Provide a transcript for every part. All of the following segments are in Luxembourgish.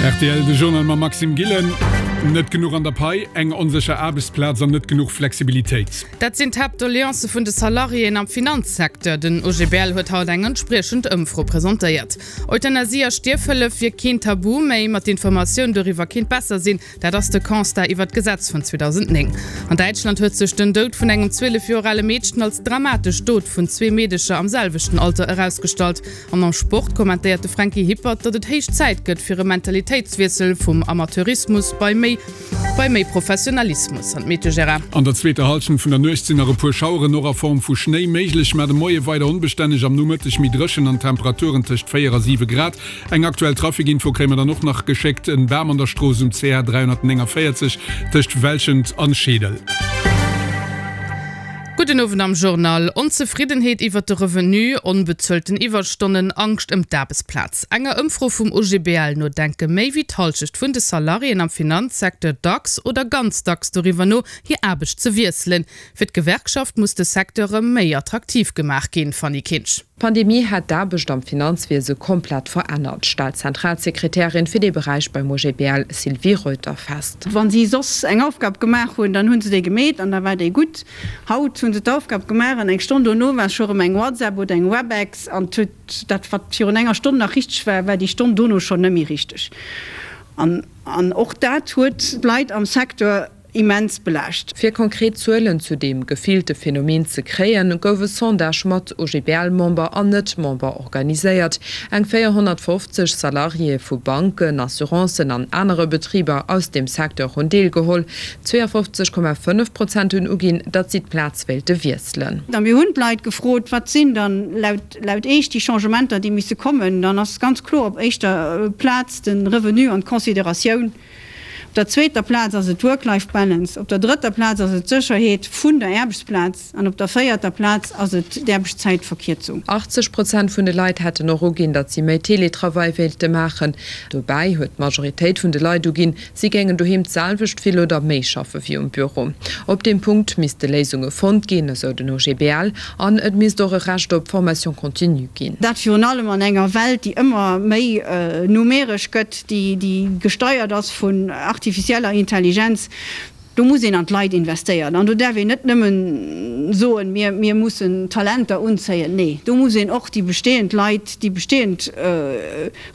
Rtl, De Journal mam Maxime Gillen. Net genuch an der Pai, eng onsécher Aarbechtsplaz an net genuch Flexibilitéit. Dat sinn d'Haaptdoleancë vun de Salariéen am Finanzsecteur. Den OGBL huet haut eng entspriechend Ëmfro presentéiert. Euthanasie a Stierfhëllef wier keen Tabu méi, ma d'Informatioun doriwwer kéint besser sinn. Dat ass de Constat iwwer d'Gesetz vun 2009. An Däitschland huet sech den Doud vun engem 12 Joer ale Meedchen als dramatesch Dot vun zwee Meedecher am selwechten Alter erausgestallt. An am Sport kommentéiert de Franky Hippert, datt et héich Zäit gëtt fir e Mentalitéitswiessel vum Amateurismus bei méi bei méi Professionalismus. An d'Meteo, Gérard? An der zweeter Hallschent vun der Nuecht sinn nach e puer Schaueren, och a Form vu Schnéi, méiglech, mä de Moie weider onbestänneg, am Nomëtteg méi dréchen an Temperaturen tëscht 4 a 7 Grad. Eng aktuell Trafikinfo kréie mer dann och nach geschéckt, En Bam an der Strooss um CR 349 tëscht Welschent an Scheedel. Gudden Owend am Journal. Onzefriddenheet iwwert de Revenu, onbezuelten Iwwerstonnen, Angscht ëm d'Aarbechtsplaz. Enger Ëmfro vum OGBL no denke méi wéi d'Hallschecht vun de Salariéen am Finanzsecteur dacks oder ganz dacks doriwwer no, hir Aarbecht ze wiesselen. Fir d'Gewerkschaft muss de Secteur erëm méi attraktiv gemaach ginn. Fanny Kinsch. D'Pandemie hätt d'Aarbecht am Finanzwiese komplett verännert, stellt d'Zentralsekretärin fir dee Beräich beim OGBL Sylvie Reuter fest. Wa si soss eng Aufgab gemaach hunn, dann hu se déi gemeet an da war déi gutt. Haut hu se d'Aufgab gemaach an eng Stonn dono war scho rëm eng WhatsApp oder eng Webex an huet dat, wat virun enger Stonn nach richteg war, war déi Stonn dono schonn net méi richteg. An och dat huet d'Leit am Secteur immens belaascht. Fir konkret Zuelen zu deem gefillte Phänomen ze kréien, gouf e Sondage mat OGBL-Member an Net-Member organiséiert. Eng 450 Salariéë vu Banken, Assurancen an anere Betriber aus deem Secteur hunn deelgeholl. 52,5 Prozent hunn uginn, datt si d'Plaz wéilte wiesselen. A mir hunn d'Leit gefrot, Wat sinn dann laut Iech déi Changementer, déi misse kommen? Dann ass ganz kloer op éischter Plaz de Revenu an d'Consideratioun. Op der zweeter Plaz ass et d'Work-Life-Balance, op der drëtter Plaz ass et d'Sécherheet vun der Aarbechtsplaz an op der véierter Plaz ass et d'Aarbechtszäitverkierzung. 80 Prozent vun de Leit hätten och uginn, datt si méi Teletravail wéilte maachen. Dobäi huet d'Majoritéit vun de Leit uginn, si géingen doheem d'selwecht vill oder méi schaffe wéi um Büro. Op deem Punkt misste Léisunge fonnt ginn, esou den OGBL, an et misst och e Recht op Formation continue ginn. Dat virun allem an enger Welt, déi ëmmer méi numeresch gëtt, déi gesteiert ass vun artificieller Intelligenz. Do muss een an d'Leit investéieren. An do däerf een net nëmmen soen, mir, mir mussen Talenter unzéien. Nee, do muss een och déi bestehend Leit, déi bestehend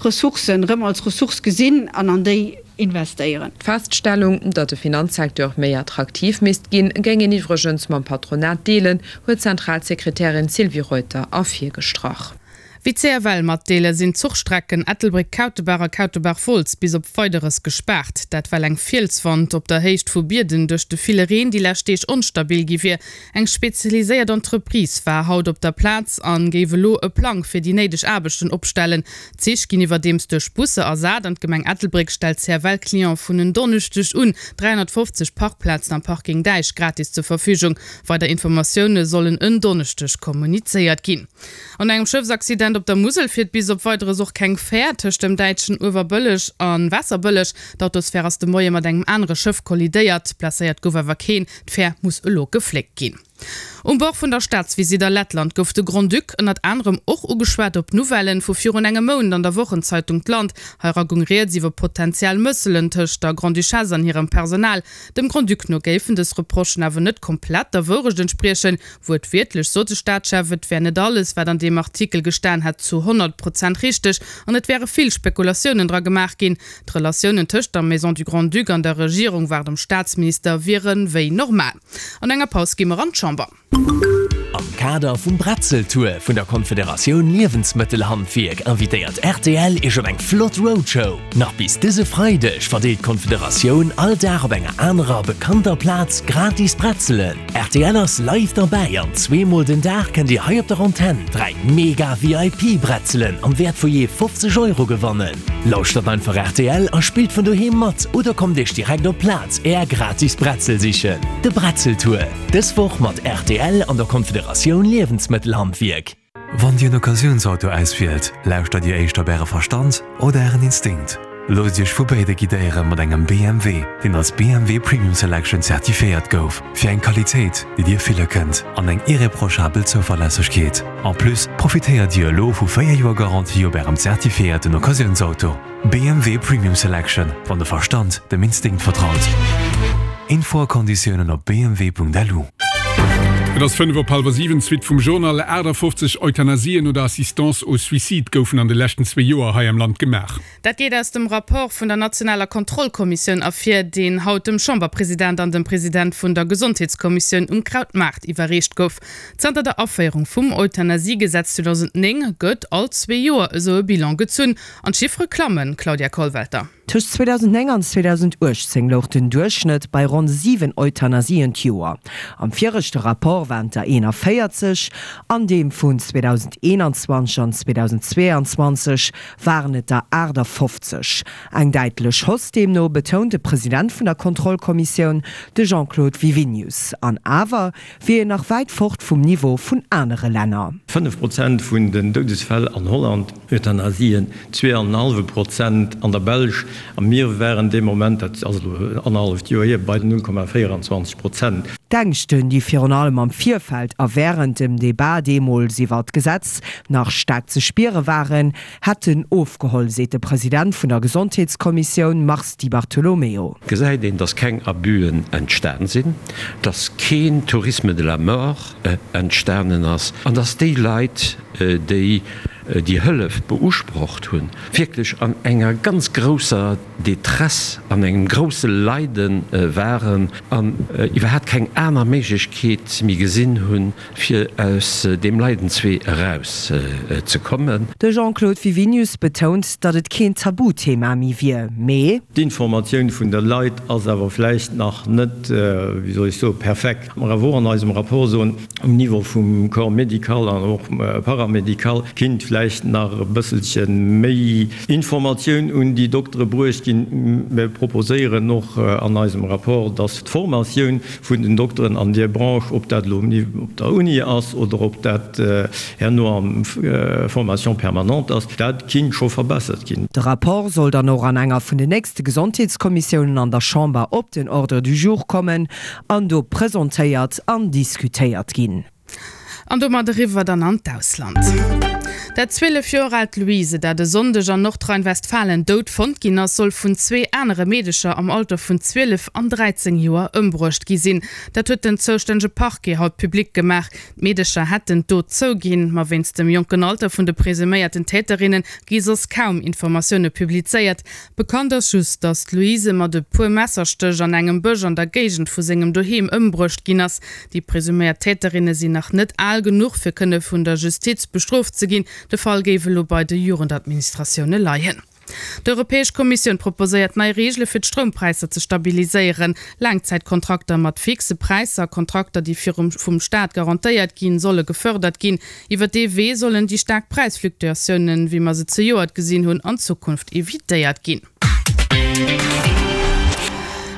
Ressourcen erëm als Ressource gesinn an an déi investéieren. D'Feststellung, datt de Finanzsecteur méi attraktiv misst ginn, géing een iwwregens mam Patronat deelen, huet d'Zentralsekretärin Sylvie Reuter ervirgestrach. Wéi d'CFL matdeelen, sinn d'Zuchstrecken Ettelbréck-Kautebaach a Kautebaach-Wolz bis op Weideres gespaart. Dat well eng Fielswand op der Héicht vu Bierden duerch de ville Reen déi lescht Deeg onstabil gi wier. Eng spezialiséiert Entreprise war haut op der Plaz an géif elo e Plang fir déi néideg Aarbechten opstellen. D'Zich ginn iwwerdeems duerch Busser ersat an d'Gemeng Ettelbréck stellt CFL-Clientë vun en Donneschdeg un 350 Parkplazen am Parking Däich gratis zur Verfügung. Weider Informatioune sollen en Donneschdeg kommunizéiert ginn. An engem Schëffsaccident op der Musel fiert bis op Weideres och keng Fär tëscht dem däitschen Uewerbëlleg a Waasserbëlleg. D'Autosfär ass de Moie mat engem anere Schëff kollidéiert. Blesséiert gouf awer keen. D'Fär muss elo gefléckt ginn. Um Bord vun der Staatsvisitt a Lettland gouf de Grand-Duc ënnert anerem och ugeschwat op d'Nouvellen vu virun engem Mount an der Wochenzeitung d'Land. Heira goung rieds iwwer potentiell Mësselen tëscht der Grande-Duchesse an hirem Personal. Dem Grand-Duc no géifen dës Reprochen awer net komplett der Wourecht entspriechen. Wuertwiertlech sot de Staatschef, et wär net alles, wat an deem Artikel gestan hätt, zu 100 Prozent richteg an et wäre vill Spekulatiounen dra gemaach ginn. D'Relatiounen tëscht der Maison du Grand-Duc an der Regierung, war dem Staatsminister, wiere wéi normal. An enger Paus gi mer an d'Chamber. Am Kader vum Bretzeltour vun der Konfederatioun Liewensmëttelhandwierk invitéiert rtl Iech op eng flott Roadshow. Nach bis dëse Freideg verdeelt d'Konfederatioun all Dag op enger anerer bekannter Plaz gratis Bretzelen. Rtl ass live derbäi an zweemol den Dag kënnt Dir hei op der Antenn 3 mega VIP Bretzelen am Wäert vu jee 50 Euro gewannen. Lauschtert einfach rtl a spillt vun doheem mat oder kommt Iech direkt op d'Plaz Är gratis Bretzel sichen. De Bretzeltour, dës Woch mat rtl an der Konfederatioun Loosst Iech vu béide guidéiere mat engem BMW, deen als BMW Premium Selection zertifiéiert gouf, fir eng Qualitéit, déi Dir fille kënnt an eng irreprochabel Zouverlässegkeet. En plus profitéiert Dir elo vu 4 Joer Garantie op Ärem zertifiéierten Occasiounsauto. BMW Premium Selection, wann de Verstand dem Instinkt vertraut. Info a Konditiounen op bmw.lu. Et ass 5 op hallwer 7, d'Suite vum Journal. 58 Euthanasien oder Assistance au suicide goufen an de leschten zwee Joer hei am Land gemaach. Dat geet aus dem Rapport vun der nationaler Kontrollkommissioun ervir, deen haut dem Chamberpresident an dem President vun der Gesondheetskommissioun um Krautmaart iwwerreecht gouf. Zanter der Aféierung vum Euthanasiegesetz 2009 gëtt all zwee Joer esou e Bilan gezunn. An d'Chiffere klammen, Claudia Kollwelter. Tëscht 2009 an 2018 louch den Duerchschnëtt bei ronn 7 Euthanasien d'Joer. Am viregte Rapport waren et der 41, an deem vun 2021 an 2022 waren et der 58. Eng däitlech Hausse deemno, betount de President vun der Kontrollkommissioun, de Jean-Claude Wiwinius. An awer wier een nach wäit fort vum Niveau vun anere Länner. 5 Prozent vun den Doudesfäll an Holland, Euthanasien, 2,5 Prozent an der Belsch a mir waren dee Moment, dat ass elo annerhalleft Joer hier, bei 0,24 Prozent. D'Ängschten, déi virun allem am Virfeld a wärend dem Debat deemools iwwer d'Gesetz nach staark ze spiere waren, hätten ofgeholl, seet de President vun der Gesondheetskommissioun Mars Di Bartolomeo. Gesäit een, dass keng Abusen entstan sinn, dass keen Tourisme de la mort entstanen ass an dass déi Leit, déi déi Hëllef beusprocht hunn, wierklech an enger ganz grousser Détresse, an engem grousse Leide waren an iwwerhaapt keng aner Méiglechkeet méi gesinn hunn, fir aus deem Leidenswee eraus ze kommen. De Jean-Claude Wiwinius betount, datt et keen Tabuthema méi wier, mee. D'Informatioun vun de Leit ass awer vläicht nach net, wéi soll ech soen, perfekt. Mer awer och an eisem Rapport soen, um Niveau vum Corps médical an och paramédical kinnt vläicht nach e bësselche méi Informatioun un déi Doktere bruecht ginn. Mir proposéieren och an eisem Rapport, dass d'Formatioun vun den Dokteren an deer Branche, ob dat elo op der Uni ass oder ob dat herno am Formation permanente ass, dat kinnt scho verbessert ginn. De Rapport soll dann och an enger vun den nächste Gesondheetskommissiounen an der Chamber op den Ordre du jour kommen an do presentéiert an diskutéiert ginn. An domat eriwwer dann an d'Ausland. Dat 12 Joer aalt Louise, dat e Sonndeg an Nordrhein-Westfalen dout fonnt ginn ass, soll vun zwee anere Meedecher am Alter vun 12 an 13 Joer ëmbruecht gi sinn. Dat huet den zoustännege Parquet haut public gemaach. D'Meedecher hätten d'Dot zouginn, ma wéinst dem jonken Alter vun de presuméierten Täterinne gi soss kaum Informatioune publizéiert. Bekannt ass just, datt d'Louise mat e puer Messerstéch an engem Bësch an der Géigend vu sengem Doheem ëmbruecht ginn ass. Déi presuméiert Täterinne sinn nach net al genuch, fir kënne vun der Justiz bestrooft ze ginn. De Fall géif elo bei de Jugendadministratioune leien. D'Europäesch Kommissioun proposéiert nei Reegele fir d'Stroumpräisser ze stabiliséieren. Laangzäitkontrakter mat fixe Präisser, Kontrakter déi virum vum Staat garantéiert ginn, solle gefërdert ginn. Iwwer dee Wee sollen déi staark Präisfluktuatiounen, wéi mer se zejoert gesinn hunn, an Zukunft evitéiert ginn.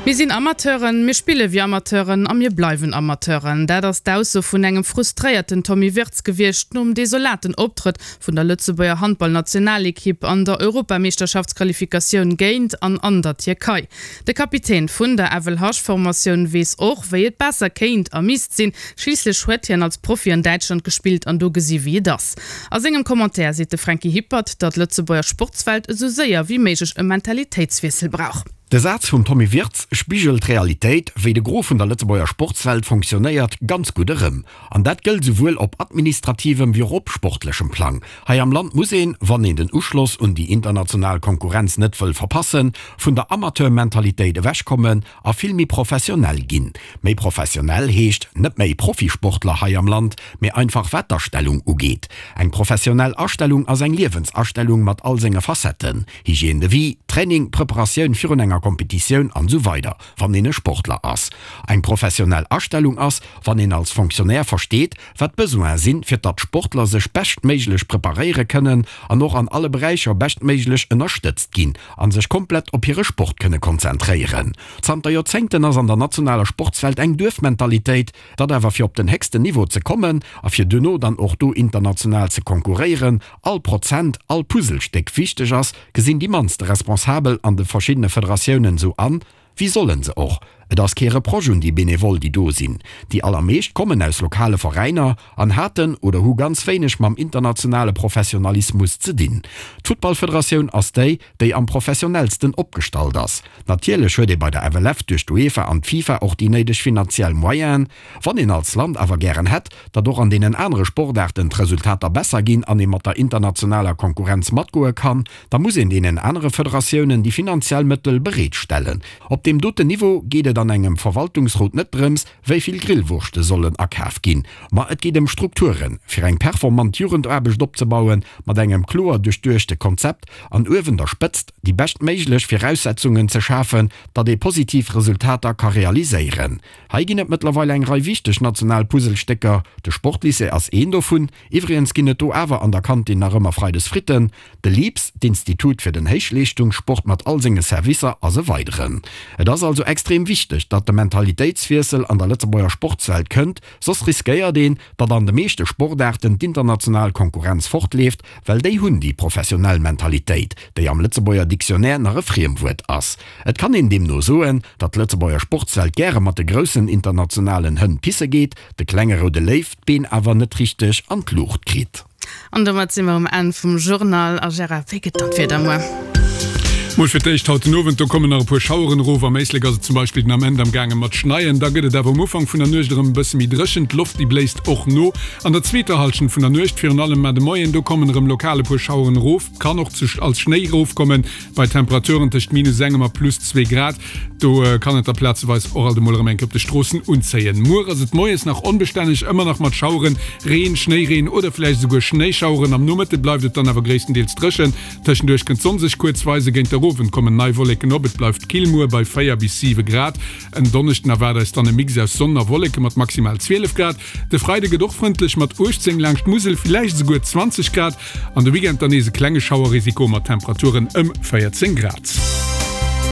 Mir sinn Amateuren, mir spille wéi Amateuren a mir bleiwen Amateuren. Dat ass d'Ausso vun engem frustréierten Tommy Wirtz gewiescht nom desolaten Optrëtt vun der Lëtzebuerger Handballnationalekipp an der Europameeschterschaftsqualifikatioun géint an an der Tierkei. De Kapitän vun der FLH-Formatioun weess och, wéi et besser kéint a misst sinn. Schliisslech huet hien als Profi an Däitschland gespillt an do gesi wéi et ass. A sengem Commentaire seet de Franky Hippert, datt d'Lëtzebuerger Sportswelt esou séier wéi méiglech e Mentalitéitswiessel brauch. De Saz vum Tommy Wirtz spigelt d'Realitéit, wéi de Gros vun der Lëtzebuerger Sportswelt fonctionnéiert, ganz gutt erëm. An dat gëllt esouwuel op administrativem wéi och op sportlechem Plang. Hei am Land muss een, wann een den Uschloss un déi international Konkurrenz net wëll verpassen, vun der Amateurmentalitéit ewechkommen a vill méi professionell ginn. Méi professionell heescht net méi Profisportler hei am Land, mee einfach wat d'Astellung ugeet. Eng professionell Astellung ass eng Liewensastellung mat all senge Facetten, Hygiène de vie, Training, Preparatioun virun enger Competitioun an esou weider Wann een e Sportler ass. Eng professionell Astellung ass, wann een als Fonctionnaire versteet, wat d'Besoine sinn, fir datt d'Sportler sech beschtméiglech preparéiere kënnen an och an alle Beräicher beschtméiglech ënnerstëtzt ginn a sech komplett op hire Sport kënne konzentréieren. Zanter Joerzéngten ass an der nationaler Sportswelt eng Duerfmentalitéit, datt awer fir op den héchsten Niveau ze kommen a fir duerno dann och do international ze konkurréieren, all Prozent, all Puzzlestéck wichteg ass, gesinn déi mannste Responsabel. Responsabel an de verschiddene Federatiounen esou an? Wéi sollen se och? Et ass kee Reproche un déi Benevole, déi do sinn. Déi allermeescht kommen aus lokale Veräiner an haten oder hu ganz wéineg mam internationale Professionalismus ze dinn. D'Futtballfederatioun ass déi, déi am professionellsten opgestallt ass. Natierlech huet ee bei der FLF duerch d'UEFA an d'FIFA och déi néideg finanziell Moyenen. Wann een als Land awer gären hätt, datt och an deenen anere Sportaarten d'Resultater besser ginn an ee mat der internationaler Konkurrenz matgoe kann, Da muss een deenen anere Federatiounen déi finanziell Mëttel bereet stellen. Op deem doten Niveau geet et an engem Verwaltungsrot net drëms, wéi vill Grillwurschte sollen akaf ginn, ma et geet ëm Strukturen, fir eng performant Jugendaarbecht opzebauen, mat engem kloer duerchduechte Konzept an uewen der Spëtzt déi beschtméiglech Viraussetzungen ze schafen, datt ee positiv Resultater ka realiséieren. Hei ginn et mëttlerweil eng Rei wichteg national Puzzlestécker. De Sportlycée ass een dovun. Iwwregens ginn et do awer an der Kantin nach ëmmer Freides Fritten. De LIPS, d'Institut fir den Héichleeschtungssport mat all senge Servicer, ass e weideren. Et ass also extrem wichteg, datt de Mentalitéitswiessel an der Lëtzebuerger Sportswelt kënnt, soss riskéiert een, datt an de meeschte Sportaarten d'international Konkurrenz fortleeft, well déi hunn déi professionell Mentalitéit, déi am Lëtzebuerger Dictionnaire nach e Friemwuert ass. Et kann een deemno soen, datt d'Lëtzebuerger Sportswelt gäre mat de groussen internationalen Hënn pisse geet, de klenge roude Léiw d'Been awer net richteg an d'Luucht kritt. An domat si mer um Enn vum Journal. A Gérard, wéi gëtt dann d'Wieder muer? Mol fir d'éischt haut den Owend, do kommen nach e puer Schaueren erof. Am Éislek ass et zum Beispill den Ament am gaange mat schneien. Da gëtt et awer um Ufank vun der Nuecht erëm e bësse méi dréchen, d'Loft déi bléist och no. An der zweeter Hallschent vun der Nuecht, virun allem mar de Moien, do kommen erëm lokal e puer Schaueren erof, kann och als Schnéi erofkommen bei Temperaturen tëscht minus engem a plus zwee Grad. Do kann et da plazeweis och alt emol erëm eng Kéier op de Stroossen unzéien. Muer ass et moies nach onbestänneg, ëmmer nach mat Schaueren, Reen, Schnéireen oder vläicht esouguer Schnéischaueren. Am Nomëtte bleift et dann awer gréisstendeels dréchen. Tëschenduerch kënnt d'Sonn sech kuerz weisen, géint der Owend kommen nei Wolleken op. Et bleift kill muer bei 4 bis 7 Grad. En Donneschden erwaart eis dann e Mix aus Sonn a Wolleke mat maximal 12 Grad. De Freide gëtt och frëndlech mat 18 laanscht d'Musel, villäicht esouguer 20 Grad. An de Weekend dann nees e klenge Schauerrisiko mat Temperaturen ëm 14 Grad.